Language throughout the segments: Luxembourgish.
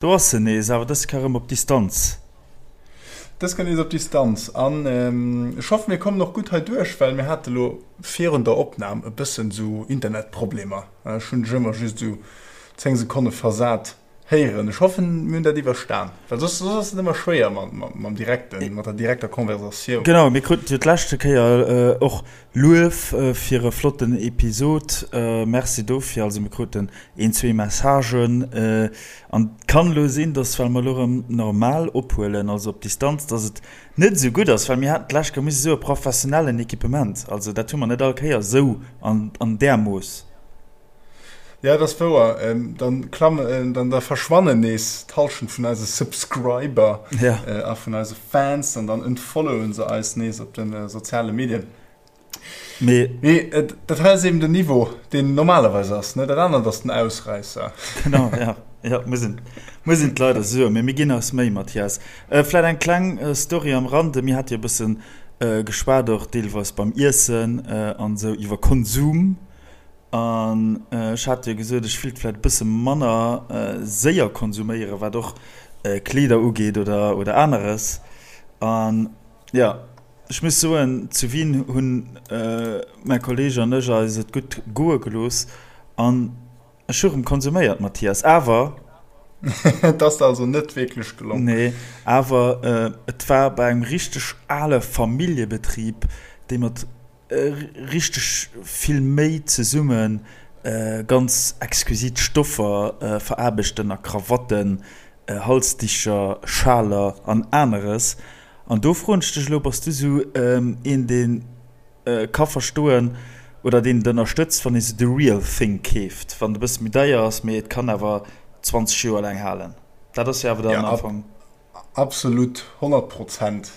Do ass se nees, awer dës Kéier erëm op Distanz. Dës Kéier nees op Distanz. An ech hoffen, mir kommen och gutt hei duerch, well mir hate lo virun der Opnam e bëssen esou Internetproblemer. Ech hunn dech ëmmer just esou 10 Sekonne versat héieren. Ech hoffen, mir hunn dat iwwerstan, well soss ass et ëmmer schwéier mam direkten, mat der direkter Conversatioun. Genau, mir kruten jo d'leschte Kéier och Luef fir e flotten Episod, merci dofir. Also mir kruten een, zwee Messagen an et kann elo sinn, dass well mer elo erëm normal ophuelen, also op Distanz, dass et net esou gutt ass, well mir haten d'lescht Kéier musse soe professionellen Equipement, also dat hu mer net all Kéier esou an där Mooss. Ja, dat ass wouer. Dann klammen, dann da verschwannen nees d'Hallschent vun eise Subscriber ja. a vun eise Fans an dann entfollowen se eis nees op de soziale Medien. Mee, Mee dat hei ass eben den Niveau, deen normalerweis ass, ne? Dat anert ass den Ausräisser. Genau, ja. Ja, muss een, muss een d'Leit soen. Mee mir ginn eis Méi, Mathias. Vläit eng kleng Story am Rande. Mir hate jo e bëssen geschwat och deelweis beim Iessen an esou iwwer Konsum. An ech hat jo gesot, ech wéilt vläicht e bësse manner séier konsuméieren, wat och Kleeder ugeet oder, oder aneres. An jo, ech muss soen, zu Wien hunn mäi Kolleeg an ech eis et gutt goe gelooss an ech hu rëm konsuméiert, Mathias. Awer. Et ass der also net wierklech gelongen? Nee, awer et war bei engem richteg ale Familljebetrib, dee mat richteg vill Méi zesumme ganz exquisit Stoffer veraarbechten a Krawatten, Halsdicher, Schaler an aneres. An do froen ech dech elo, Bass du sou een, dee ka verstoen oder deen et ënnerstëtzt, wann ee sou the real thing keeft, wann et e bësse méi deier ass, mee et kann awer 20 Joer laang halen? Dat ass jo awer dann am Fong. Absolut, 100 Prozent.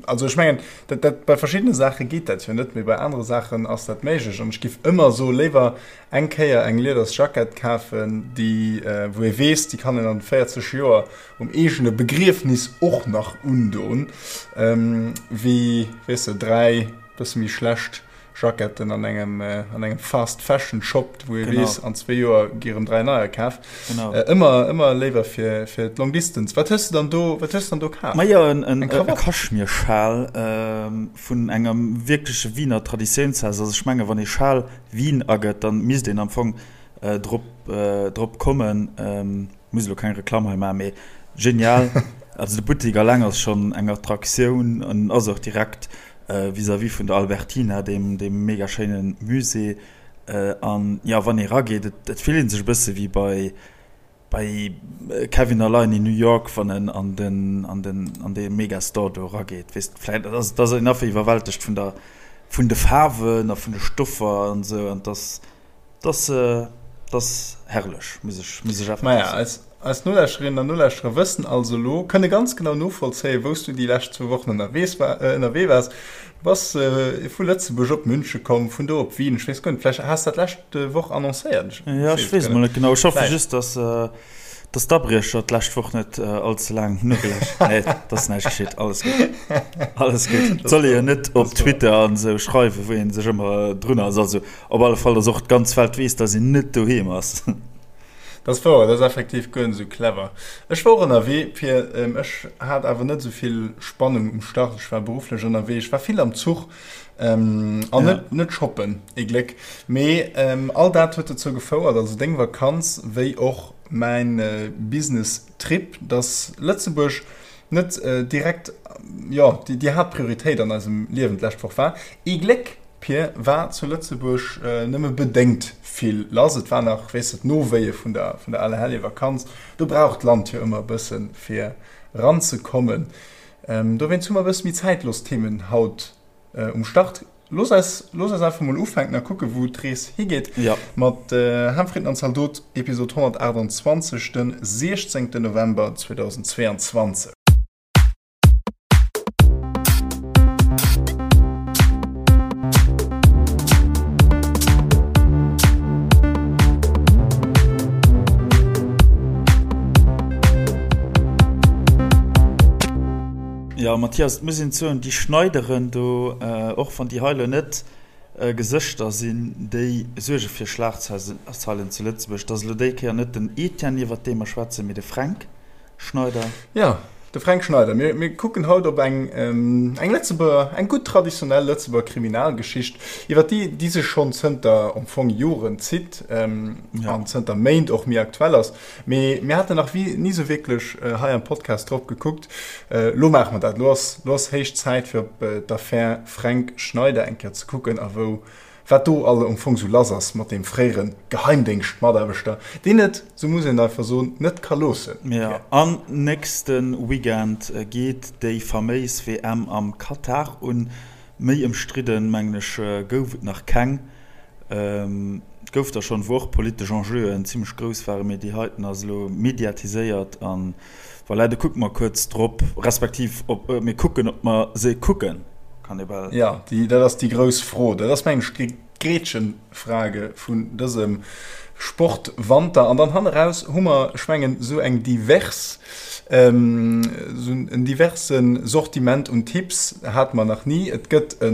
Also ech mengen, dat, dat, bei verschiddene Saache geet dat jo net, mee bei anere Saachen ass dat méiglech. An ech giff ëmmer soe léiwer eng Kéier eng lieders Jackett kafen, déi, wou ee weess, déi kann een an 40 Joer um eegene Begriefnis och nach undon, wéi, weess de, 3 bësse méi schlecht Jacketten an engem an engem Fast Fashion Shop, wou ee weess, an zwee Joer gi erëm 3 neier kaf. Ëmmer ëmmer léiwer fir fir d'Long Distance. Wat hues de dann do wat hues de dann do kaf? Majo en en e Kaschmirschal vun engem wierkleche Wiener Traditiounshaus. Also ech menge wann ee Schal Wien agëtt, dann misst een am Fong drop drop kommen. Muss elo keng Reklamm hei maachen, mee genial. Also de Buttik alleng ass schonn eng Attraktioun an ass och direkt vis-à-vis vun der Albertina, deem deem mega schéine Musée. An jo, wann ee rageet, et et fillt ee sech e bësse wéi bei bei Kevin Allein in New York, wann en an den an den an dee Megastore do erageet. Weess de, vläicht ass et ass een einfach iwwerwältegt vun der vun de Faarwen a vun de Stoffer an esou an et ass 't ass herrlech, muss ech muss ech effektiv Maja, soen. eis, eis Nolauschterinnen an Nolauschterer wëssen also elo, kënne ganz genau novollzéien, wou s du déi lescht zwou Wochen ënnerwees war, ënnerwee waars. Du bass vu Lëtzebuerg op Münche komm, vun do op Wien. Ech weess guer net, vläicht has dat lescht Woch annoncéiert, ech Ja, ech weess et weess guer emol net. net genau. Ech hoffe Vläicht. just, dass Dass d'Abriecher d'lescht Woch net all ze laang nogelauschtert. Nee, et ass näischt geschitt. Alles gutt. Alles gutt. Et soll ee jo net op Twitter an esou schreiwen, wou ee sech ëmmer drun ass. Also op alle Fall, dass och d'ganz Welt weess, dass een net doheem ass. Dat ass wouer, dat ass effektiv guer net esou clever. Ech war och ënnerwee, fir ech hat awer net esou vill Spannung um Start. Ech war berufflech ënnerwee, ech war vill am Zuch an net net shoppen, ee Gléck. Mee all dat huet dozou gefouert, also deng Vakanz wéi och mäin Business Trip, dass Lëtzebuerg net direkt, jo, déi Haaptprioritéit an eisem Liewen d'lescht Woch war. Ee Gléck, Pir, war zu Lëtzebuerg nëmme bedéngt vill lass. Et war nach, weess de, d'Nowéie vun der vun der Allerheljevakanz. Do brauch d'Land jo ëmmer e bësse fir eranzekommen. Dowéinst hu mer e bësse méi zäitlos Themen haut um Start. Looss eis, looss eis einfach mol ufänken a kucken, wou d'Rees higeet. Ja. Mat Ham, Fritten an Zaldot, Episod 128, den 16. November 2022. Jo, Mathias, et muss een soen, déi Schneideren do, och wann déi hei elo net. Gesëschter sinn, déi suerge fir Schlagzeilen zu Lëtzebuerg. Et ass elo déi Kéier net den Etienne, iwwert dee mer schwätzen, mee de Fränk Schneider. Jo, de Fränk Schneider. Mir, mir kucken haut op eng, eng Lëtzebuerger, eng gutt traditionell Lëtzebuerger Kriminalgeschicht, iwwer déi, déi sech schonn zënter am Fong Joren zitt an zënter Méint och méi aktuell ass. Mee mir haten nach ni sou wierklech hei am Podcast drop gekuckt. Lo maache mer dat. Lo ass, lo ass héich Zäit fir op d'Affär Fränk Schneider eng Kéier ze kucken a wou, wat do all am Fong sou lass ass mat deem fréiere Geheimdéngschtmataarbechter, deen et, sou muss een einfach soen, net ka loossen. Jo, an nächste Weekend geet déi faméis WM am Katar un. Méi ëmstridden, mengen ech, gouf et nach keng. Et gouf der schonn, wou och politesch Enjeuen zimmlech grouss waren, mee déi heiten ass elo mediatiséiert an voilà, do kucke mer kuerz drop, respektiv ob mir kucken, ob mer se kucken, kann ee bal. Jo, déi, dat ass déi grouss Fro. Dat ass, mengen ech, déi Gretchenfrage vun dësem Sportwanter. An dann hanneraus hu mer, ech mengen, esou eng divers, esou en diverse Sortiment un Tipps hate mer nach ni. Et gëtt e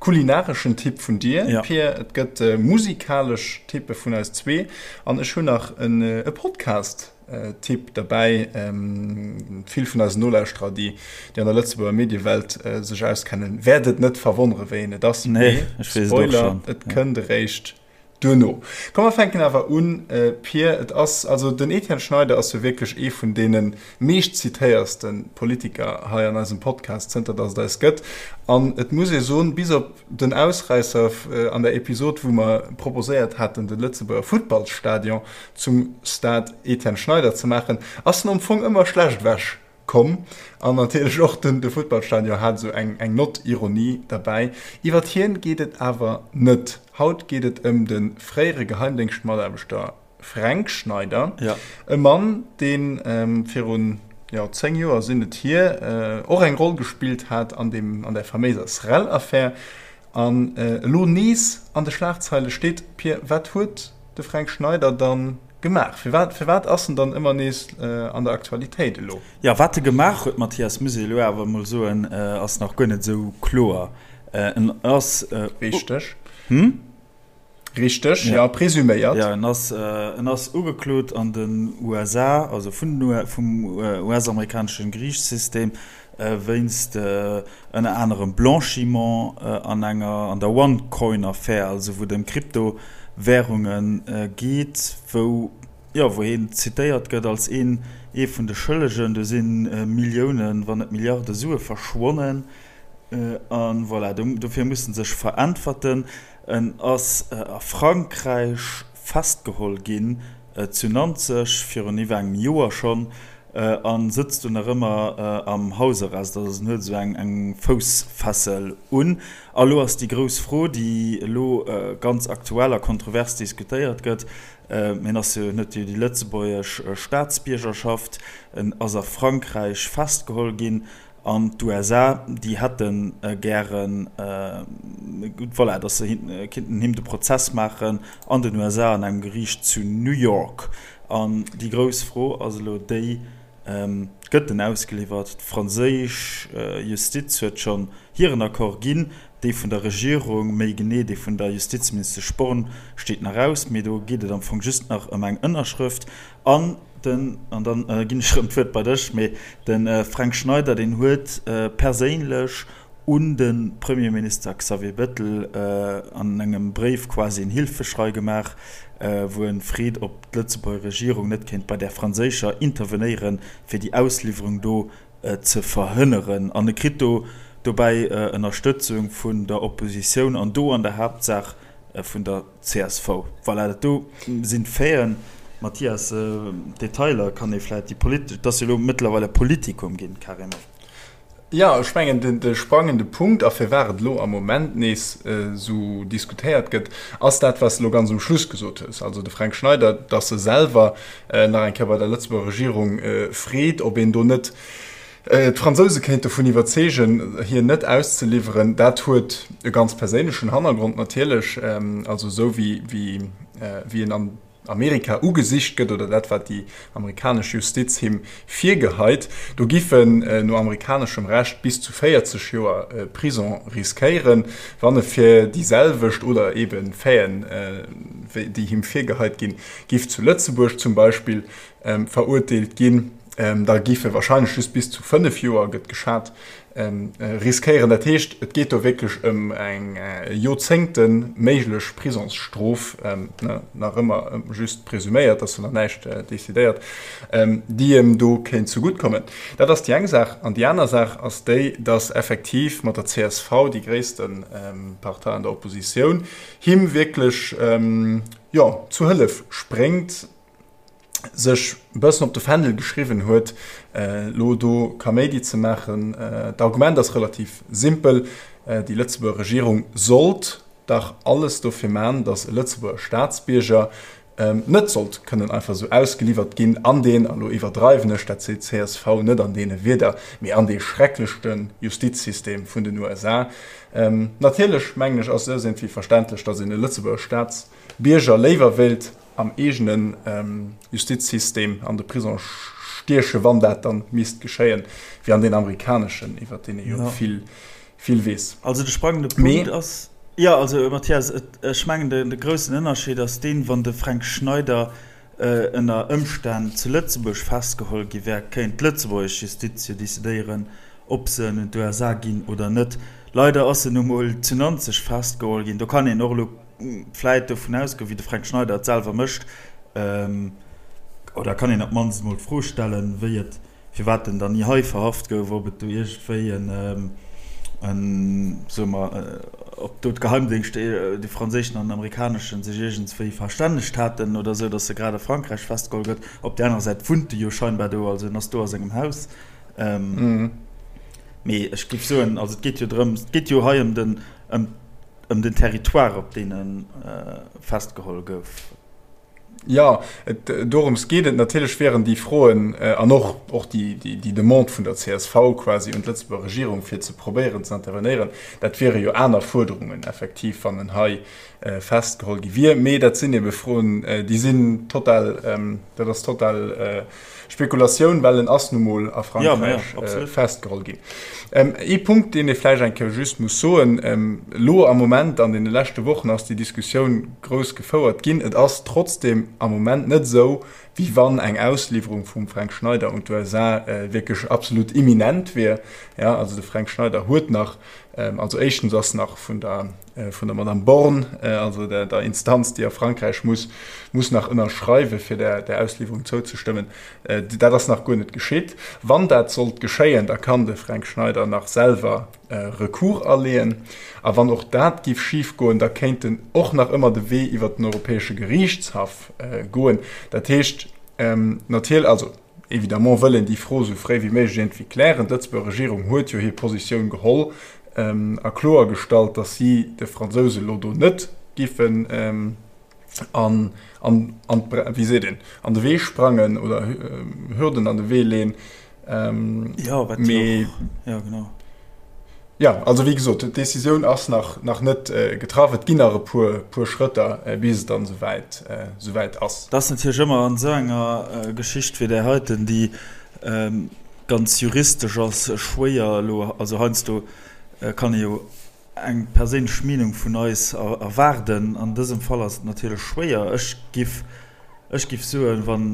kulinareschen Tipp vun dir, Pir, et gëtt musikalesch Tippe vun eis zwee an ech hunn nach e Podcast. Tipp derbäi. Vill vun eisen Nolauschterer, déi an der Lëtzebuerger Mediewelt sech auskennen, wäert et net verwonnere wéi een et ass. Nee, ech weess et och Spoiler, schonn. et kënnt eréischt duerno. Komm mer fänken awer un, Pir. Et ass, also den Etienne Schneider ass jo wierklech ee vun deene meeschtzitéierste Politiker hei an eisem Podcast, zënter datt et eis gëtt. An et muss ee soen, bis op Den Ausräisser an der Episod, wou mer proposéiert haten, de Lëtzebuerger Futtballsstadion zum Stade Etienne Schneider ze maachen, ass en am Fong ëmmer schlecht ewech komm. An natierlech och den de Futtballstadion hat esou eng eng Nott Ironie derbäi. Iwwert hien geet et awer net. Haut geet et ëm de fréiere Geheimdéngschtmataarbechter Fränk Schneider, e Mann, dee virun, jo, 10 Joer sinn et hier, och eng Roll gespillt hat an deem, an där faméiser Srel-Affär an elo nees an de Schlagzeile steet. Pir, wat huet de Fränk Schneider dann gemaach? Firwat, firwat ass en dann ëmmer nees an der Aktualitéit elo? Jo, wat e gemaach huet, Mathias, muss ee elo awer emol soen, ass nach guer net esou kloer. En ass. Richteg. Hm? Richteg, ja, presuméiert. Ja, en ass, en ass ugeklot an den USA, also vun den, vum US-amerikaneschen Geriichtssystem, wéinst ënner anerem Blanchiment an enger, an der OneCoin-Affär, also wou et ëm Kryptowärunge geet, wou, jo, wou hien zitéiert gëtt als een, ee vun de Schëllegen. Do si Milliounen, wann net Milliarde Sue verschwonnen. A voilà, dofir muss en sech veräntwerten. En ass a Frankräich festgeholl ginn, zu Nanzeg, virun iwwer engem Joer schonn, a sëtzt do nach ëmmer am Hausarrest. Also en huet esou eng Foussfessel un. A lo ass déi grouss Fro, déi elo ganz aktuell a kontrovers diskutéiert gëtt, En ass jo, en huet jo déi lëtzebuergesch Staatsbiergerschaft, en ass a Frankräich festgeholl ginn, An d'USA, déi hätte gären, voilà, datt se kinnten him de Prozess maachen an den USA, an engem Geriicht zu New York. An déi grouss Fro ass elo déi, Gëtt en ausgeliwwert? D'franséisch Justiz huet schonn hiren Accord ginn, dee vun der Regierung, méi genee dee vun der Justizministesch Borne, steet nach aus, mee do geet et am Fong just nach ëm eng Ënnerschrëft. An den, an dann ginn ech erëm d'Wuert bei dech, mee de Fränk Schneider, deen huet perséinlech un de Premierminister Xavier Bettel an engem Bréif quasi en Hilfeschrei gemaach, wou e freet, ob d'Lëtzebuerger Regierung net kéint bei där franséischer intervenéieren, fir déi Ausliwwerung do ze verhënneren. An e kritt do dobäi Ënnerstëtzung vun der Oppositioun an do an der Haaptsaach vun der Csv. Voilà, dat do sinn d'Faiten. Mathias, d'Detailer kann ee vläicht, déi politesch, et ass jo elo mëttlerweil e Politikum ginn, carrément. Jo, ech mengen, de sprangende Punkt, a firwat et elo am Moment nees esou diskutéiert gëtt, ass dat, wat s de elo ganz um Schluss gesot hues, also de Fränk Schneider, datt e selwer nach eng Kéier bei der Lëtzebuerger Regierung freet, ob een do net D'Fransouse kéint dovun iwwerzeegen, hien net auszeliwweren. Dat huet e ganz perséinlechen Hannergrond natierlech, also esou wéi en an. Amerika ugesicht gëtt oder dat wat déi amerikanesch Justiz him virgeheit. Do giff en no amerikaneschem Recht bis zu 40 Joer Prison riskéieren, wann e fir déi selwecht oder ebe Faiten, déi him virgeheit ginn, giff zu Lëtzebuerg zum Beispill verurteelt ginn. Da giff e wahrscheinlech just bis zu 5 Joer, gëtt geschat, riskéieren. Dat heescht, et geet do wierklech ëm eng Joerzéngte méiglech Prisongsstrof, nach ëmmer just presuméiert, ass jo nach näischt decidéiert, déi em do kéint zegutt kommen. Dat ass déi eng Saach. An déi aner Saach ass déi, datt effektiv mat der csv, déi gréisste Partei an der Oppositioun, him wierklech, jo, zu Hëllef spréngt. sech e bëssen op de Fändel geschriwwen huet, elo do Kaméidi ze maachen. D'Argument ass relativ simpel, Déi Lëtzebuerger Regierung sollt dach alles dofir man, datt e Lëtzebuerger Staatsbierger net sollt kënnen einfach esou ausgeliwwert ginn an deen, an elo iwwerdreiwen ech, dat seet d'CSV net an deene Wierder, mee an dee schrecklechte Justizsystem vun den USA. Natierlech, mengen ech, ass et iergendwéi verständlech, datt een e Lëtzebuerger Staatsbierger léiwer wéilt am eegene Justizsystem an de Prisong stiechen, wann dat dann misst geschéien, wéi an deen amerikaneschen, iwwer deen ee jo vill, vill weess. Also de sprangende Punkt ass, jo, also Mathias, ech mengen de groussen Ënnerscheed ass deen, wann de Fränk Schneider ënner Ëmstänn zu Lëtzebuerg festgeholl gi wär, kéint d'lëtzebuergesch Justiz jo decidéieren, ob se en un d'USA ginn oder net. Leider ass en nu mol zu Nanzeg festgeholl ginn. Do kann een och elo vläit dovun ausgoen, wéi de Fränk Schneider et selwer mécht, oder kann een op d'mannst emol d'Fro stellen, wéi et, firwat en dann ni hei verhaft gouf, ob et do iergendwéi en, en, soe mer, ob do d'Geheimdéngschter, de franséischen an den amerikaneschen, sech iergendswéi verstännegt haten oder esou, datt e grad a Frankräich festgeholl gëtt. Op där anerer Säit wunnt e jo scheinbar do, also en ass do a sengem Haus. Mee ech géif soen, also et geet jo drëms, et geet jo hei ëm den, ëm ëm den Territoire, op deen e festgeholl gouf. Jo, et, dorëms geet et. Natierlech wieren déi Froen an och, och déi, déi Demande vun der csv quasi un d'Lëtzebuerger Regierung, fir ze probéieren ze intervenéieren, dat wiere jo aner Fuerderungen effektiv, wann en hei festgeholl gi wier. Mee dat sinn ebe Froen, déi sinn total, dat ass total Spekulatioun, well en ass nu mol a Frankräich festgeholl ginn. Ee Punkt, deen ee vläicht eng Kéier just muss soen, Elo am Moment, an deene leschte Wochen ass déi Diskussioun grouss gefouert ginn. Et ass trotzdeem am Moment net esou, wéi wann eng Ausliwwerung vum Fränk Schneider un d'USA wierklech absolut imminent wier. Also de Fränk Schneider huet nach, also éischtens ass nach vun der vun der Madame Borne, also der, der Instanz, déi a Frankräich muss, muss nach ënnerschreiwen, fir der, der Ausliwwerung zouzestëmmen. Dat ass nach guer net geschitt. Wann dat sollt geschéien, da kann de Fränk Schneider nach selwer Recours aleeën. A wann och dat giff schifgoen, da kéint en och nach ëmmer de Wee iwwert den Europäesche Geriichtshaff goen. Dat heescht, natierlech, also Évidemment wëll een déi Fro esou fréi wéi méiglech iergendwéi klären. D'Lëtzebuerger Regierung huet jo hir Positioun geholl a kloergestallt, datt si de Fransouse elo do net giffen an, an, an, wéi seet een, an de Wee sprangen oder Hürden an de Wee leen. Jo, wat jo och, jo genau. Jo, also wéi gesot, d'Decisioun ass nach, nach net getraff. Et ginn nach e puer, puer Schrëtter, bis et dann esouwäit, esouwäit ass. Et ass natierlech ëmmer an esou enger Geschicht wéi där heiten, déi ganz juristesch ass, schwéier elo, also heiansdo kann ee jo eng perséinlech Meenung vun eis erwaarden. An dësem Fall ass et natierlech schwéier. Ech giff, ech giff soen, wann.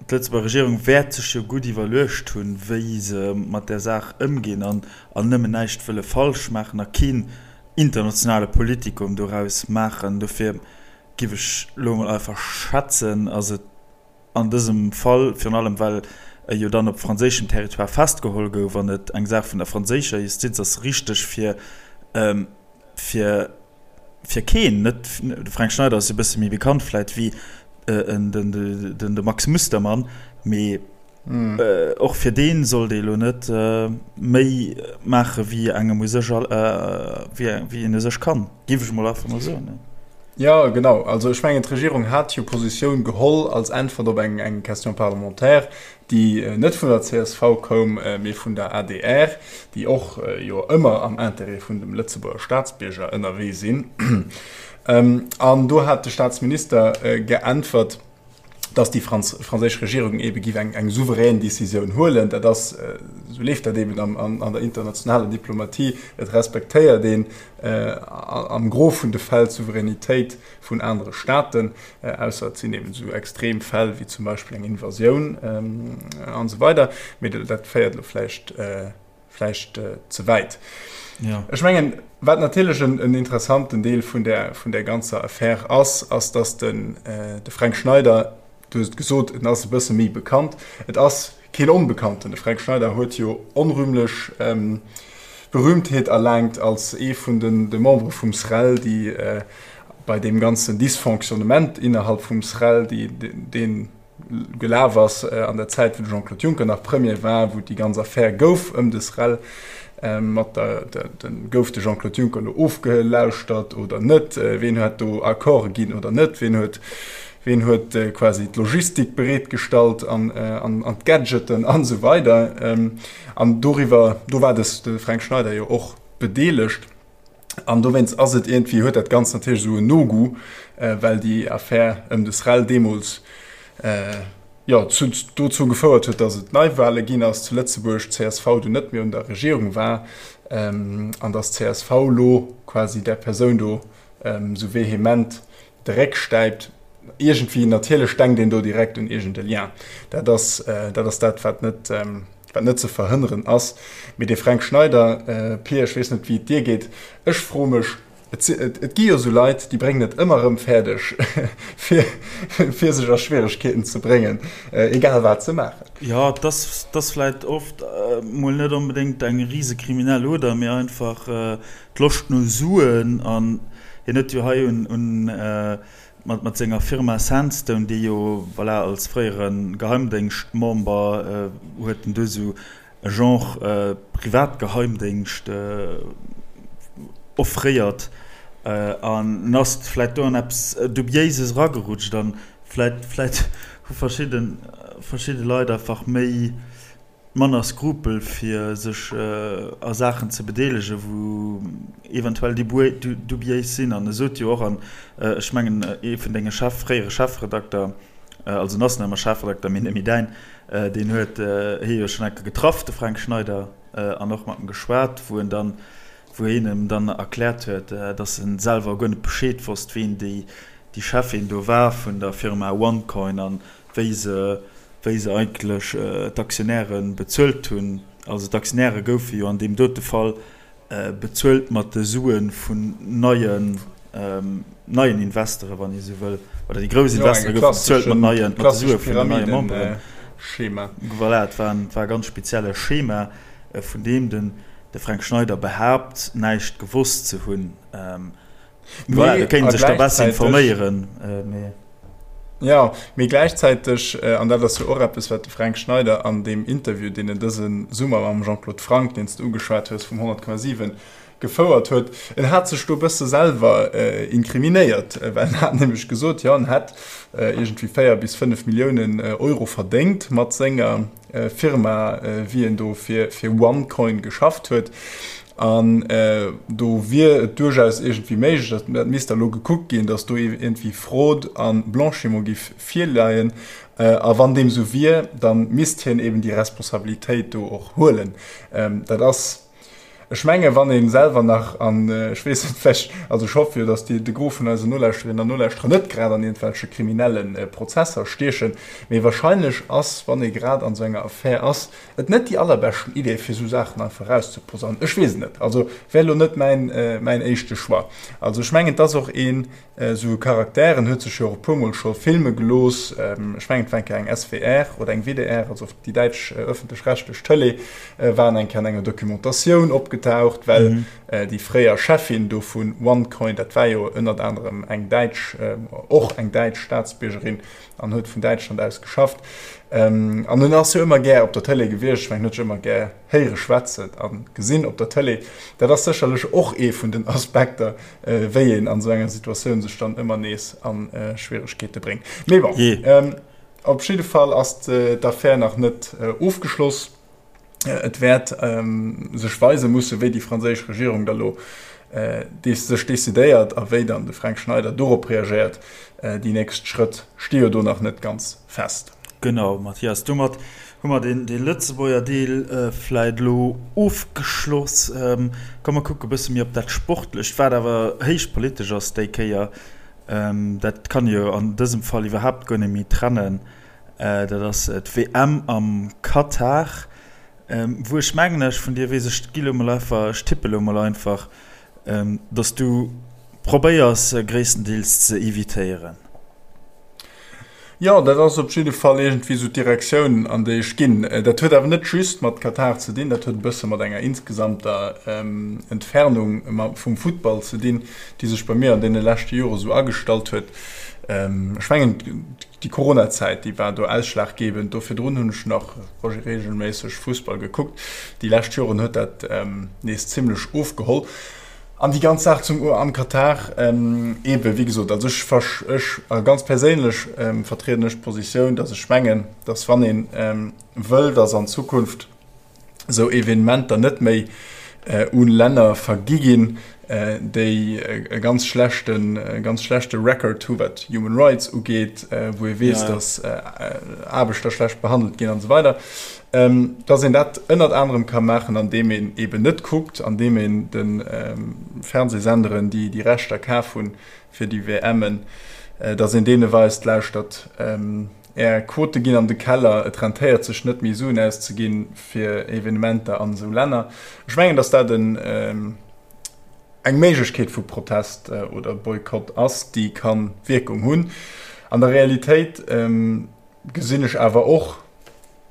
D'Lëtzebuerger Regierung wäert sech jo gutt iwwerluecht hunn, wéi se mat där Saach ëmginn an nëmmen näischt wëlle falsch maachen a keen internationale Politikum doraus maachen. Dofir giff ech elo emol einfach schätzen, ass et an dësem Fall, virun allem well e jo dann op franséischem Territoire festgeholl gouf an et eng Saach vun der franséischer Justiz ass, richteg fir fir fir keen, net de Fränk Schneider ass e bësse méi bekannt vläit wéi den de Max Mustermann, mee och fir dee sollt ee lo net méi maache wéi engem u sech wéi een u sech kann, géif ech mol einfach mol soen. Jo, genau. Also ech mengen d'Regierung hat jo Positioun geholl als Äntwert op eng Question parlementaire, déi net vun der csv koum, mee vun der adr, déi och jo ëmmer am Intérêt vun dem Lëtzebuerger Staatsbierger ënnerwee sinn. An do hat de Staatsminister geäntwert, dass déi franséisch Regierung ebe giff eng souverän Decisioun huelen. Dat ass, esou leeft dat eben an der internationaler Diplomatie, et respektéiert een am Gros vun de Fäll d'Souveränitéit vun anere Staaten, ausser et sinn eben esou extrem Fäll wéi zum Beispill eng Invasioun an esou weider. Mee dat féiert elo vläicht vläicht ze wäit. Ja. Ech mengen, wat natierlech en, en interessanten Deel vun der, vun der ganzer Affär ass, ass, dass den, äh, de Fränk Schneider, du hues et gesot, en ass e bësse méi bekannt. Et ass keen Onbekannten. De Fränk Schneider huet jo onrühmlech ähm, Berühmtheet erlaangt als ee vun den, de Membere vum SREL, déi äh, bei deem ganzen Dysfonctionnement innerhalb vum SREL, déi, deen, gelaf ass an der Zäit, wou de Jean-Claude Juncker nach Premier war, wou déi ganz Affär gouf ëm de SREL, mat der, de, gouf de Jean-Claude Juncker elo ofgelauschtert oder net, ween huet do Accorde ginn oder net, ween huet, ween huet quasi d'Logistik bereetgestallt an, an, an d'Gadgeten an esou weider. An doriwwer, do war de Fränk Schneider jo och bedeelegt. An dowéinst ass et iergendwéi, huet dat Ganzt natierlech esou en No-Goût, well déi Affär ëm de SREL deemools, jo, zu, dozou gefouert huet, datt et Neiwale ginn ass zu Lëtzebuerg, d'CSV dunn net méi un der Regierung war an datt d'CSV elo quasi där Persoun do esou vehement de Réck stäipt. Iergendwéi, natierlech denkt een do direkt un iergend e Lien. Dat ass, dat ass dat, wat net, wat net ze verhënneren ass. Mee de Fränk Schneider, Pir, ech weess net, wéi et dir geet, ech froe mech, et si, et, et gi jo esou Leit, déi bréngen et ëmmer erëm fäerdeg, fir, fir sech a Schwieregkeeten ze bréngen, egal wat se maachen. Jo, et ass, et ass vläicht oft mol net onbedéngt eng rise kriminell Oder, mee einfach d'Loscht no Suen. An hien huet jo hei un, un, mat, mat senger Firma Sandstone, déi jo, voilà, als fréiere Geheimdéngschtmember huet en do esou e Genre Privatgeheimdéngscht offréiert an en ass vläit do an eppes Dubiéises eragerutscht an vläit, vläit hu verschidde, verschidde Leit einfach méi, manner Skrupel fir sech a Saachen ze bedeelegen, wou eventuell dubiéis sinn. An e sot jo och, an ech mengen ee vun denge Chef, fréiere Chefredakter, also en ass nach ëmmer Chefredakter, mee net méi däin, deen huet hie jo schonn eng Kéier getraff, de Fränk Schneider, an och mat em geschwat, wou en dann, wou hien em dann erkläert huet, datt en selwer guer net Bescheed wosst, ween déi Cheffin do war vun der Firma OneCoin an wéi se, wéi se eigentlech d'Aktionäre bezuelt hunn. Also d'Aktionäre goufe jo an deem dote Fall bezuelt mat de Sue vun neien, neien Investoren, wann ee esou wëll, oder déi grouss Investoren goufe bezuelt mat neien, mat de Sue vun den neie Memberen. Schema. Voilà, et war en, et war e ganz spezielle Schema, vun deem den de Fränk Schneider behaapt, näischt gewosst ze hunn. Voilà, do kéint sech da besser informéieren. Mee. Ja, mee gläichzäiteg, an dat ass jo och eppes, wat de Fränk Schneider an deem Interview, deen en dëse Summer mam Jean-Claude Franck, deen s de ugeschwat hues, vum 100,7 gefouert huet, en hat sech do e bësse selwer inkriminéiert, well en hat nämlech gesot, jo, en hätt iergendwéi 4 bis 5 Milliounen Euro verdéngt mat senger Firma, wéi en do fir OneCoin geschafft huet. An do wier et duerchaus iergendwéi méiglech, dat misst da lo gekuckt ginn, datt do iergendwéi Fraude a Blanchiment giff virleien. A wann deem esou wier, da misst hien eben déi Responsabilitéit do och huelen. Dat ass, ech menge wann ee selwer nach an, ech weess net, vläicht, also ech hoffe jo, datt déi, de Gros vun eisen Nolauschterinnen an Nolauschterer net grad an iergendwelche kriminelle Prozesser stiechen, mee wahrscheinlech ass, wann ee grad an esou enger Affär ass, Et net déi allerbeschten Idee fir sou Saachen einfach rauszeposaunen. Ech weess et net. Also wär elo net mäin mäin éischte Choix. Also ech mengen et ass och een sou e Charakter, en huet sech jo och e puer mol scho filme gelooss. Ech mengen et war eng Kéier eng SWR oder eng WDR, also déi däitsch ëffentlech-rechtlech Tëlee, war en eng Kéier an enger Documentatioun opgetaucht, well déi fréier Cheffin do vun OneCoin, dat war jo ënnert anerem eng däitsch, och eng däitsch Staatsbiergerin, an huet vun Däitschland aus geschafft. An en ass jo ëmmer gär op der Tëlee gewiescht. Ech mengen, en huet sech ëmmer gär héiere schwätzen a gesinn op der Tëlee. Dat ass sécherlech och ee vun den Aspekter, wéi een an esou enger Situatioun sech dann ëmmer nees a Schwieregkeete bréngt. Mee bon, op jidde Fall ass d'Affär nach net ofgeschloss. Et wäert sech weise mussen, wéi déi franséisch Regierung da lo. sech decidéiert a wéi dann de Fränk Schneider dorop reagéiert. Déi nächst Schrëtt sti jo do nach net ganz fest. Genau, Mathias, domat hu mer dee Lëtzebuerger Deel vläit elo ofgeschloss. Komm mer kucke bësse méi op dat Sportlecht, wat awer héich politesch ass déi Kéier. Dat kann ee jo an dësem Fall iwwerhaapt guer net méi trennen. Dat ass d'WM am Katar. Wou ech mengen, ech vun dir weess, ech gi lo mol einfach, ech tippe lo mol einfach, dass du probéiers gréisstendeels ze evitéieren. Jo, dat ass op jidde Fall iergendwéi esou d'Direktioun, an déi ech ginn. Dat huet awer net just mat Katar ze dinn, dat huet e bësse mat enger insgesamter Entfernung vum Futtball ze dinn, déi sech bei mir an deene leschte Jore sou agestallt huet. Ech mengen, Déi Coronazäit, déi war do ausschlaggebend. Do virdrun hunn ech nach reegelméisseg Fussball gekuckt. Déi lescht Joren huet dat nees zimmlech ofgeholl. An déi ganz Saach zum am Katar, eebe wéi gesot, also ech ech ganz perséinlech vertrieden ech d'Positioun, datt ech mengen, datt wann ee wëll, datt an Zukunft esou Evenementer net méi u Länner vergi ginn, déi e ganz schlechten, e ganz schlechte Record hu wat Human Rights ugeet, wou ee weess, datt Aarbechter schlecht behandelt ginn an esou weider, datt een dat ënnert anerem ka maachen, andeem een eeben net kuckt, andeem een de Fernsehsenderen, déi déi Rechter kaf hunn fir déi WMen, datt een deene weist, Lauschtert, Är Quote ginn an de Keller, et rentéiert sech net méi Suen auszeginn fir Evenementer an esou Länner. Ech mengen, datt dat en eng Méiglechkeet vu Protest oder Boykott ass, déi ka Wierkung hunn. An der Realitéit gesinn ech awer och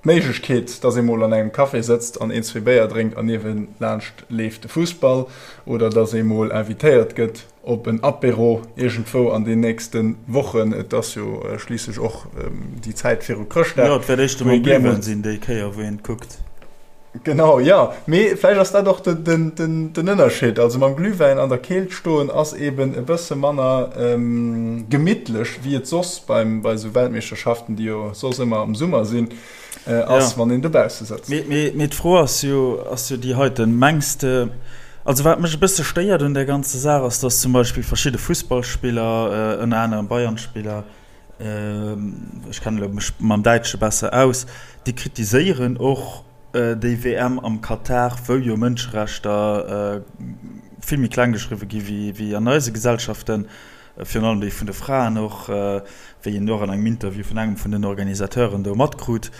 d'Méiglechkeet, datt ee mol an engem Café sëtzt an een, zwee Béier drénkt an niewelaanscht leeft de Fussball oder datt ee mol invitéiert gëtt op en Apéro iergendwou an den nächste Wochen. Et ass jo schliisslech och déi Zäit viru Chrëschtdag. Jo, et wäert éischter mol Glühwäin sinn déi Kéier, wou een kuckt. Genau, jo. Mee vläicht ass dat och den Ënnerscheed. Also mam Glühwäin an der Keelt stoen ass eben e bësse manner gemittlech, wéi et soss bei esou Weltmeeschterschaften, déi jo soss ëmmer am Summer sinn, ass, wann een dobausse sëtzt. Mee d'Fro ass jo, ass jo déi heiten, Mengs de, also wat mech e bësse stéiert un där ganzer Saach ass, datt zum Beispill verschidde Fussballspiller, ënner anerem Bayern-Spiller, ech kennen elo mech mam Däitsche besser aus, déi kritiséieren och déi WM am Katar, wou jo Mënscherechter vill méi kleng geschriwwe gi wéi an eise Gesellschaften, virun allem déi vun de Fraen och, wéi een och an engem Interview vun engem vun den Organisateuren do matkrut.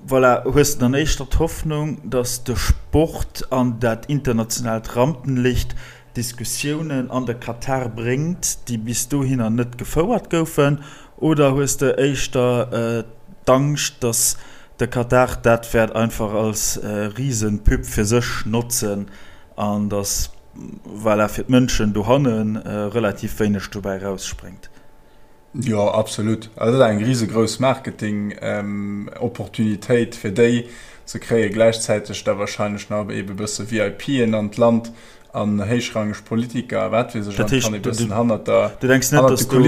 Voilà, hues de dann éischter d'Hoffnung, datt de Sport an dat internationaalt Rampenlicht Diskussiounen an de Katar bréngt, déi bis dohinner net gefouert goufen, oder hues de éischter d'Angscht, datt de Katar dat wäert einfach als Risenpub fir sech notzen an datt, voilà, fir d'Mënschen dohanne relativ wéineg dobäi erausspréngt? Jo, absolut. Also dat ass eng risegrouss Marketing-Opportunitéit fir déi. Se kréie gläichzäiteg da wahrscheinlech nach ebe bësse VIPen an d'Land an héichrangeg Politiker a wat weess ech. Dat heescht, du denks net, dass do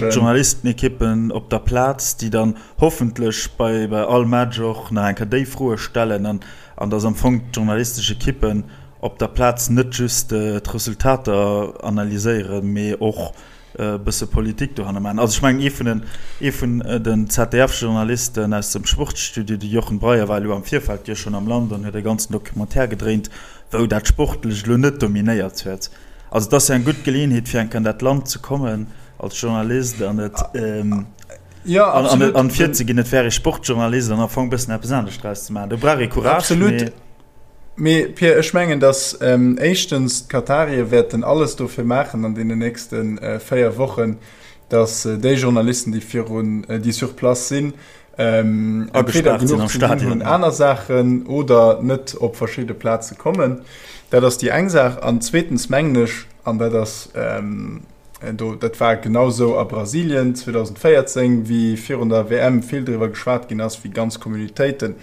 d'Journalistenekippen op der Plaz, déi dann hoffentlech bei all Match och nach eng Kéier déi Froe stellen an dass am Fong d'journalistesch Ekippen op der Plaz net just d'Resultater analyséieren, mee och e bësse Politik dohanner maachen. Also ech mengen, ee vun den, ee vun den ZDF-Journalisten aus dem Sportstudio, de Jochen Breyer, war elo am Virfeld jo schonn am Land an huet e ganzen Documentaire gedréint, wou dat Sportlecht elo net dominéiert huet. Also et ass jo eng gutt Geleeënheet, fir eng Kéier an dat Land ze kommen als Journalist an et, an virzeginn, et wär ee Sportjournalist an am Fong e bëssen eppes anescht draus ze maachen. Do brauch ee Courage, mee. Mee Pierre, ech mengen, datt éischtens d'Katarier wäerten alles dofir maachen an deenen nächste 4 Wochen, datt déi Journalisten, déi virun, déi sur place sinn, entweder genuch ze dinn hunn, aner Saachen oder net op verschidde Plaze kommen. Dat ass déi eng Saach. An zweetens mengen ech, an dat ass, Do, dat war genau sou a Brasilien 2014, wéi virun der WM vill driwwer geschwat ginn ass, wéi ganz Communautéite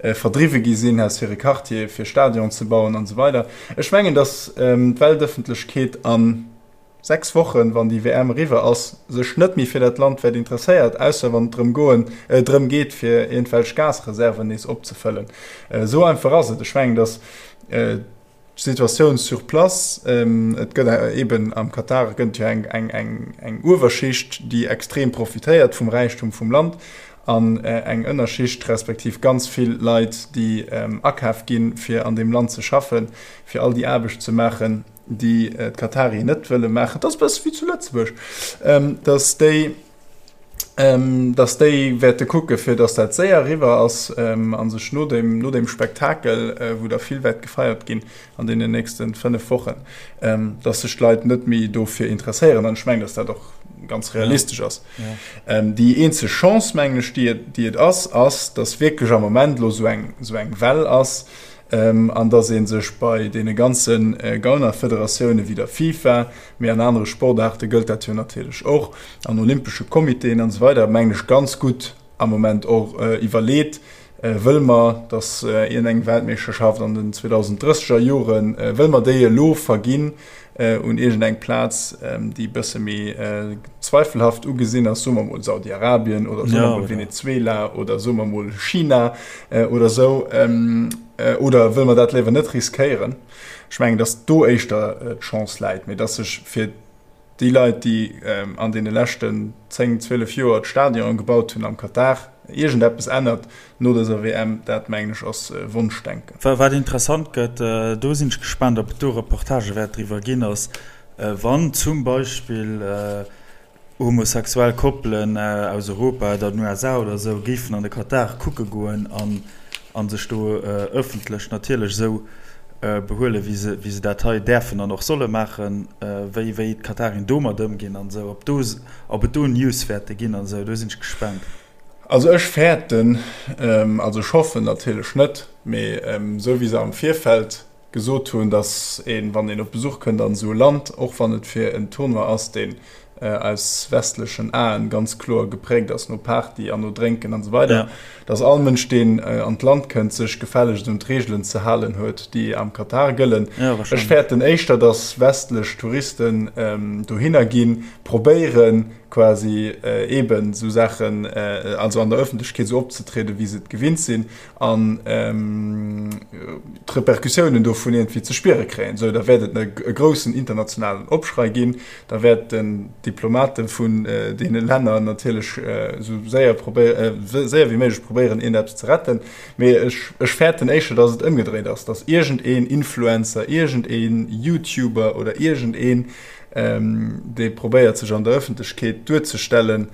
verdriwwe gi sinn aus hire Quartiere fir Stadion ze bauen an esou weider. Ech mengen, datt d'Weltëffentlechkeet a 6 Wochen, wann déi WM eriwwer ass, sech net méi fir dat Land wäert interesséiert, ausser wann et drëm goen, drëm geet, fir iergendwelch Gasreserven nees opzefëllen. Esou einfach ass et. Ech mengen, datt. D'Situatioun sur place, et gëtt eben am Katar gëtt jo eng, eng, eng, eng Uewerschicht, déi extrem profitéiert vum Räichtum vum Land an eng Ënnerschicht, respektiv ganz vill Leit, déi akaf ginn, fir an deem Land ze schaffen, fir all déi Aarbecht ze maachen, déi d'Katarien net wëlle maachen. Dat ass e bësse wéi zu Lëtzebuerg, datt déi, dass déi wäerte kucke fir dass dat séier eriwwer ass a sech no deem, no deem Spektakel, wou da vill wäert gefeiert ginn an deenen nächste 5 Wochen, dass sech d'Leit net méi dofir interesséieren. An ech mengen, dass dat och ganz realistesch ass. Déi eenzeg Chance, mengen ech, déi et, déi et ass, ass, dass wierklech am Moment elo esou eng, esou eng Well ass an dass ee sech bei deene ganze Gaunerfederatioune wéi der FIFA, mee an anere Sportaarte gëllt dat jo natierlech och, an olympesche Comitéen an esou weider, mengen ech, ganz gutt am Moment och iwwerleet, Wëlle mer, datt iergendeng Weltmeeschterschaft an den 2030er Joren, wëlle mer déi elo verginn un iergendeng Plaz, déi e bësse méi zweifelhaft ugesinn ass, soe mer emol Saudi-Arabien oder soe mer emol Venezuela oder soe mer emol China oder esou, oder wëlle mer dat léiwer net riskéieren? Ech mengen, datt do éischter d'Chance läit, mee datt sech fir déi Leit, déi an deene leschten 10, 12 Joer d'Stadionen gebaut hunn am Katar, iergendeppes ännert no dëser WM, dat mengen ech ass Wonschdenken. Wat interessant gëtt, do sinn ech gespaant, ob et do Reportagë wäert driwwer ginn, ass wann zum Beispill homosexuell Koppelen aus Europa oder den USA oder esou géifen an de Katar kucke goen an sech do ëffentlech natierlech esou behuelen, wéi se, wéi se dat hei däerfen an och solle maachen, wéi, wéi d'Katarien domat ëmginn an esou, ob do, ob et do News wäerte ginn an esou, do sinn ech gespaant. Also ech fäerten, also ech hoffen natierlech net, mee esou wéi se am Virfeld gesot hunn, datt een, wann een op Besuch kënnt an esou e Land, och wann et fir en Tournoi ass, deen aus westlechen Aen ganz kloer gepräägt ass no Party an no Drénken an esou weider, datt all Mënsch, deen an d'Land kënnt, sech gefällegst un d'Reegelen ze halen huet, déi am Katar gëllen. Ech fäerten éischter, datt westlech Touristen dohinner ginn, probéieren quasi eeben esou Saachen, also an der Ëffentlechkeet esou opzetrieden, wéi se et gewinnt sinn, an d'Repercussiounen dovun iergendwéi ze spiere kréien, esou da wäert et e groussen internationalen Opschrei ginn, da wäerten d'Diplomate vun deene Länner natierlech esou séier séier wéi méiglech probéieren iergendeppes ze retten. Mee ech ech fäerten éischter, datt et ëmgedréit ass, datt iergendeen Influencer, iergendeen YouTuber oder iergendeen, dee probéiert sech an der Ëffentlechkeet duerzestellen,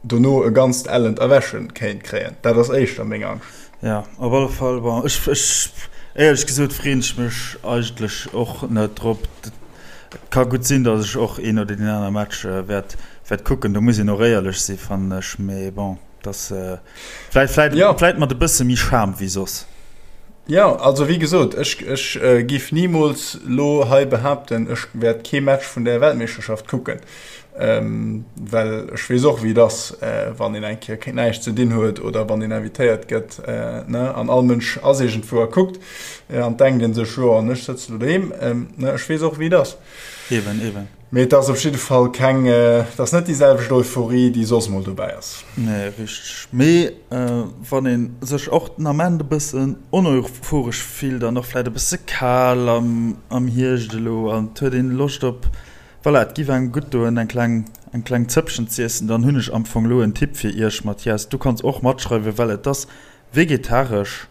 dono e ganzt ellent Erwächen kéint kréien. Dat ass éischter meng Angscht. Jo, op alle Fall. Bon, ech, ech, éierlech gesot freeën ech mech eigentlech och net drop. Et ka gutt sinn, datt ech och een oder deen aner Match wäert, wäert kucken. Do muss een och éierlech si fannen ech. Mee bon, dass vläit, vläit, vläit mat e bësse méi Charme wéi soss. Jo, also wéi gesot, ech, ech giff nimools lo hei behaapten, ech wäert kee Match vun där Weltmeeschterschaft kucken. Well ech weess och, wéi et ass, wann een eng Kéier näischt ze dinn huet oder wann een invitéiert gëtt, ne, an all Mënsch ass iergendwou a kuckt, an denkt ee sech, jo, an ech sëtze lo doheem. Ne, ech weess och, wéi et ass. Eben, eben. Mee et ass op jidde Fall keng, et ass net déi selwecht Euphorie, déi soss mol dobäi ass. Nee, richteg. Mee wann ee sech och den Ament e bëssen oneuphoresch fillt an och vläicht e bësse kal am Hierscht elo an et huet een Loscht op Voilà, et giff engem gutt doen eng kleng eng kleng Zëppchen z'iessen. Dann hunn ech am Fong lo en Tipp fir iech, Mathias, du kanns och matschreiwen, well et ass vegetaresch,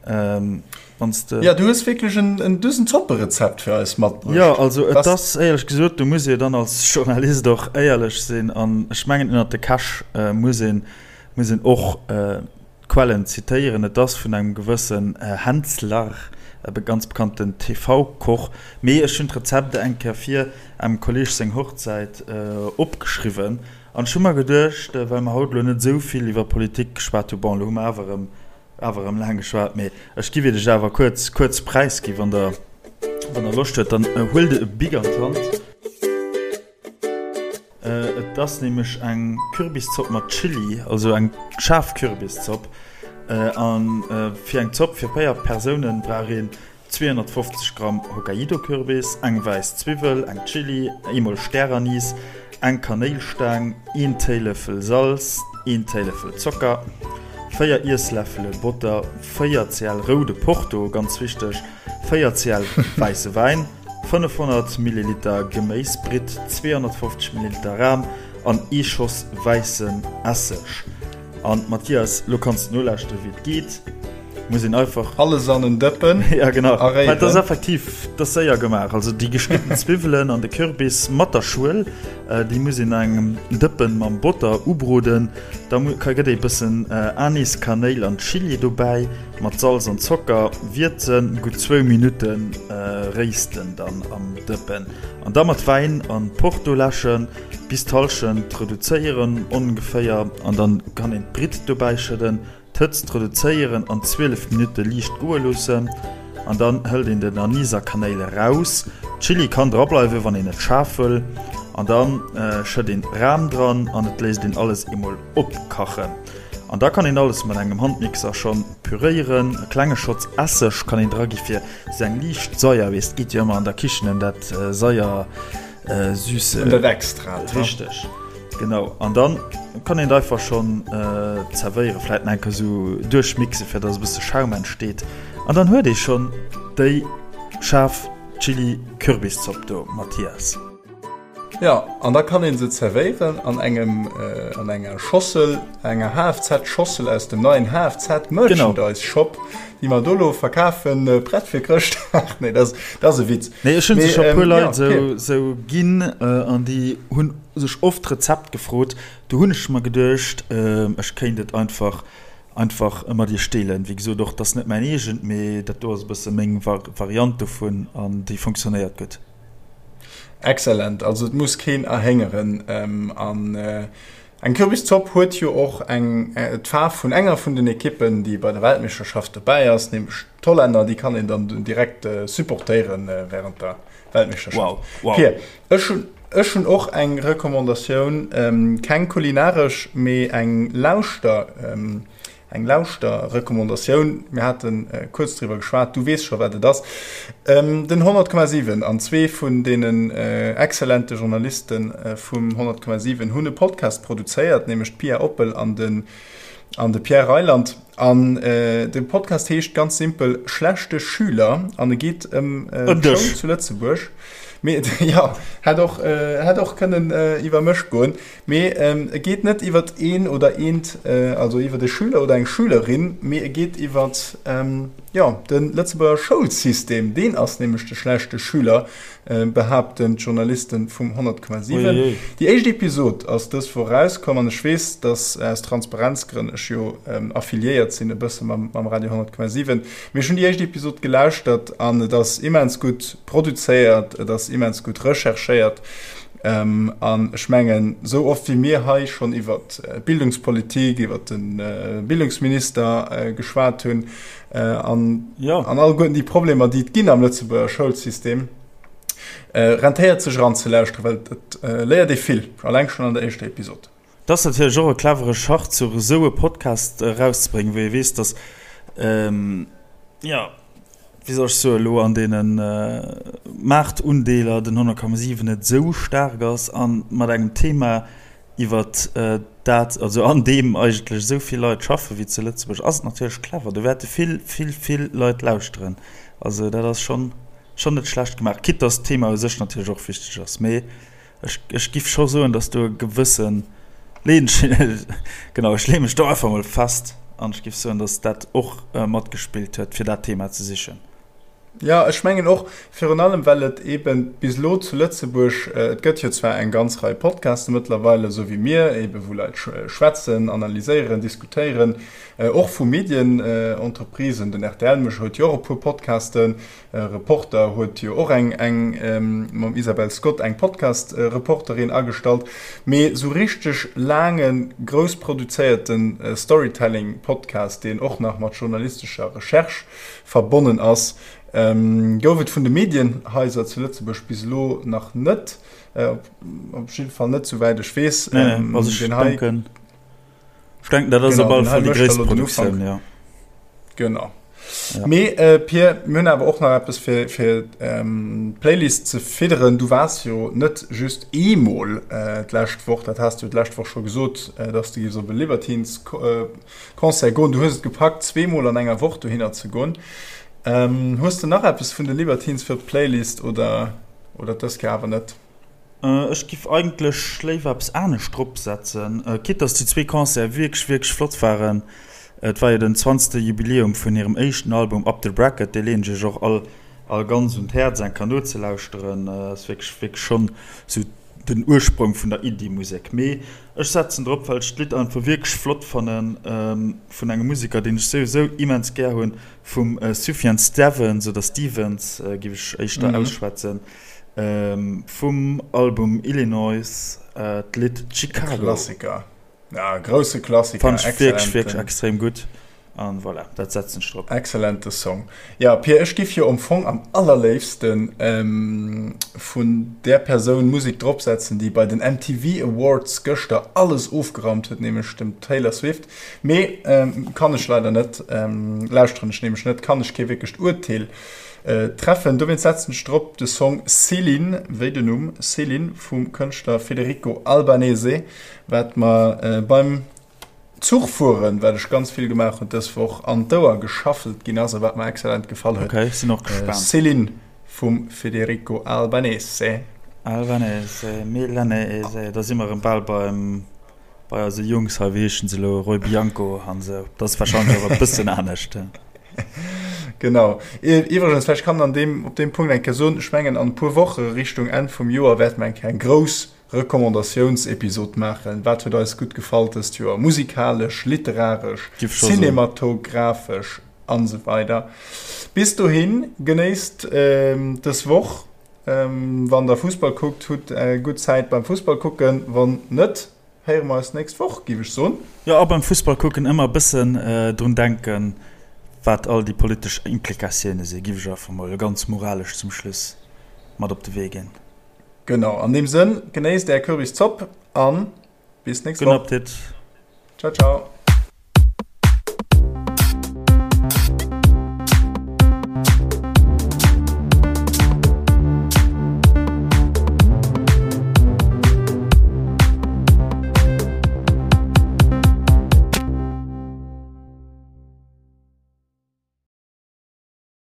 wann s de. Jo, du hues wierklech en en du hues en Zopperezept fir eis matbruecht. Jo, also et ass éierlech gesot, do muss ee dann als Journalist och éierlech sinn an ech mengen ënnert de Käch muss een muss een och Quellen zitéieren, et ass vun engem gewëssen Hänzler, e ganz bekannten TV-Koch, mee ech hunn d'Rezept eng Kéier fir engem Kolleeg seng Hochzäit opgeschriwwen an ech hu mer geduecht, well mer haut elo net esou vill iwwer Politik geschwat hu, bon, elo hu mer awer erëm awer erëm laang geschwat, mee ech giff iech awer kuerz kuerz präisgi wann der wann der Loscht huet, dann huelt e Bic an d'Hand. Et ass nämlech eng Kürbiszopp mat Chilli, also eng schaarf Kürbiszopp. A fir eng Zopp fir 4 Persounen brauch een 250 Gramm Hokkaido-Kürbis, eng wäiss Zwiwwel, eng Chilli, eemol Stäranis, eng Kanéilstaang, een Téilëffel Salz, een Téilëffel Zocker, 4 Iessläffele Botter, 4 cl roude Porto, ganz wichteg! 4 cl wäisse Wäin, 500 Milliliter Geméisbritt, 250 Milliliter Ram an ee Schoss wäissen Esseg. An Mathias, lo kanns de nolauschteren, wéi et geet. Muss een einfach. Alles an en Dëppen ja, genau. a réieren. Dat ass effektiv, dat ass séier gemaach. Also déi geschnidden Zwiwwelen an de Kürbis mat der Schuel, déi muss een an engem Dëppen mam Botter ubroden. Da gëtt ee bëssen Anis, Kanéil an Chili dobäi, mat Salz an Zocker wierzen, gutt zwou Minutte réisten dann am Dëppen an da mat Wäin an Porto läschen. Bis d'Hallschent reduzéieren ongeféier an dann kann een d'Britt dobäi schëdden, d'Hëtzt reduzéieren an 12 Minutte liicht goe loossen an dann hëlt een den Anis a Kanéil eraus. Chili kann dra bleiwen wann een et schaarf wëll an dann schëtt een Ram dran an et léisst een alles eemol opkachen an da kann een alles mat engem Handmixer schonn püréieren. E klenge Schotz Esseg kann een dra gi fir sou eng liicht Saier, weess et geet jo ëmmer an der Kichen ëm dat Saier. Äh, süße. Und dat Extrat. Richtig. Genau. An dann kann een einfach schon äh, zerwéieren, vielleicht nach eng so duerchmixen, fir dass e bësse Schaum entsteet. An dann huet ee schon déi schaarf Chili-Kürbiszopp do, Mathias. Ja, an da kann een se zerwéieren an engem äh, an enger Schossel, enger HFZ-Schossel aus dem neien HFZ-Merchandise-Shop, déi mer do lo verkafen, äh, prett fir Chrëschtdag. Nee, dat ass e Witz. Nee, ech hunn se scho puer Leit sou sou ginn an déi hunn sech oft d'Rezept gefrot. Do hunn ech mer geduecht, ech kéint et einfach einfach mat iech deelen. Wéi gesot, och dat ass net mäin eegent, mee dat do ass e bësse meng Variant dovun an déi funktionéiert gutt. Excellent, also et muss keen erhéngeren an Eng Kürbiszopp huet jo och eng d'Faarf vun enger vun den Ekippen, déi bei der Weltmeeschterschaft dobäi ass, nämlech d'Hollänner. Déi kann een dann direkt supportéiere wärend der Weltmeeschterschaft. Wow, wow. Pir, ech hunn ech hunn och eng Recommandatioun, keng kulinaresch, mee eng Lauschter. Eng Lauschter-Recommandatioun, mir hate kuerz driwwer geschwat, du weess scho wat et ass, den 100,7 an zwee vun deenen exzellente Journaliste vum 100,7 hunn e Podcast produzéiert, nämlech d'Pia Oppel an de an de Pierre Reyland. An de Podcast heescht ganz simpel Schlechte Schüler an e geet ëm d'Schoul zu Lëtzebuerg. Mee jo, hätt och hätt och kënnen iwwer mech goen. Mee e geet net iwwert een oder eent, also iwwert e Schüler oder eng Schülerin, mee e geet iwwert, jo, de Lëtzebuerger Schoulsystem. Deen ass nämlech de schlechte Schüler, behaapten d'Journaliste vum 100,7. Déi éischt Episod ass dës Woch erauskomm an ech weess, dass aus Transparenzgrënn ech jo affiliéiert sinn e bësse mam Radio 100,7, mee ech hunn déi éischt Episod gelauschtert an et ass immens gutt produzéiert, et ass immens gutt recherchéiert. An ech mengen, esou oft wéi mir hei schonn iwwer d'Bildungspolitik, iwwer de Bildungsminister geschwat hunn an alleguerten déi Problemer, déi et ginn am Lëtzebuerger Schoulsystem, rentéiert sech eranzelauschteren, well et léiert ee vill, alleng schonn an der éischter Episod. Et ass natierlech och e clevere Schachzuch, esou e Podcast erauszebréngen, wou ee weess, datt, jo, wéi soll ech soen, elo an deene Maartundeeler den 100,7 net esou staark ass a mat engem Thema, iwwer dat, also an deem eigentlech esou vill Leit schaffen, wéi zu Lëtzebuerg, ass et natierlech clever. Do wäerte vill, vill, vill Leit lauschteren. Also dat ass schonn, schonn net schlecht gemaach, quitte datt d'Thema u sech natierlech och wichteg ass. Mee Ech, ech giff scho soen, dass do e gewëssen Leenchen, genau, ech leeë mech do einfach mol fest an ech giff soen, dass dat och matgespillt huet, fir dat Thema ze sichen. Jo, ech mengen och, virun allem well et eeben bis elo zu Lëtzebuerg, et gëtt jo zwar eng ganz Rei Podcaste mëttlerweil, esou wéi mir eeben, wou Leit schwätzen, analyséieren, diskutéieren, och vu Medienentreprisen, den rtl mécht huet jo och e puer Podcasten, Reporter huet jo och eng eng mam Isabel Scott eng Podcast Reporterin agestallt, mee sou richteg laange grouss produzéierte Storytelling Podcast, deen och nach mat journalistescher Recherche verbonnen ass, gouf et vun de Medienhaiser zu Lëtzebuerg bis elo nach net, op jidde Fall net souwäit ech weess. Nee, also ech denken. Ech denken, dat ass op alle Fall déi gréisst Produktioun, jo. Genau. Ja. Mee äh, Pir, mir hunn awer och nach eppes fir, fir ähm, d'Playlist ze fidderen. Du waars jo net just eemol äh, d'lescht Woch, dat has du d'lescht Woch scho gesot, äh, dass du giffs op e Libertines äh, Concert goen. Du hues et gepackt, zweemol an enger Woch dohinner ze goen. Hues de nach eppes vun de Libertines fir d'Playlist oder oder dës Kéier awer net? Ech giff eigentlech léiwer eppes anescht drop setzen, quitte dass déi zwee Concerte wierklech wierklech flott waren. Et war jo den zwanzegste Jubiläum vun hirem éischten Album Up the Bracket, dee leen ech iech och all all ganz un d'Häerz eng Kéier nozelauschteren. Ass wierklech wierklech schonn sou den Ursprong vun der Indie-Musek. Mee ech setzen drop, well ech d'Lidd einfach wierklech flott fannen, vun engem Museker, deen ech souwisou immens gär hunn, vum Sufjan Stevens oder Stevens, géif ech éischter ausschwätzen, vum Album Illinois, d'Lidd Chicago. E Klassiker. Ja, grousse Klassiker. Fand ech wierklech, wierklech extrem gutt. An voilà, dat setzen ech drop. Excellente Song. Ja, Pir, ech giff jo am Fong am allerléifsten vun där Persoun Musek dropsetzen, déi bei den MTV Awards gëschter alles ofgeraumt huet, nämlech dem Taylor Swift. Mee kann ech leider net, lauschteren ech nämlech net, kann ech kee wierklecht Urteel treffen. Dowéinst setzen ech drop de Song Céline, wéi den Numm Céline vum Kënschtler Federico Albanese, wat mer beim Zuch fueren, wat ech ganz vill gemaach hunn dës Woch, an d'Ouer geschaffelt ginn ass a wat mer excellent gefall huet. Ok, sinn och gespaant. Céline vum Federico Albanese. Albanese, Milanese, da si mer erëm bal beim, bei eise Jungs hei, wéi heeschen se elo, Roy Bianco an esou. Dat ass warscheinlech och e bëssen anescht. Genau. Iwwregens, vläicht kann an deem, op deem Punkt eng Kéier soen, ech mengen an e puer Woche Richtung Enn vum Joer wäerte mer eng Kéier eng grouss Recommandatiounsepisod maachen. Wat huet eis gutt gefall dëst Joer? Musikalesch, literaresch, cinematografesch an esou weider. Bis dohin, genéisst dës Woch. Wann der Fussball kuckt, hutt gutt Zäit beim Fussball kucken. Wann net, héiere mer eis d'nächst Woch, géif ech soen. Jo, a beim Fussball kucken ëmmer e bëssen drun denken, wat all déi politesch Implikatioune sinn, géif ech einfach mol ganz moralesch zum Schluss mat op de Wee ginn. Genau, an deem Sënn, genéisst är Kürbiszopp an bis nächst Woch. Gudden Appetit. Ciao, ciao.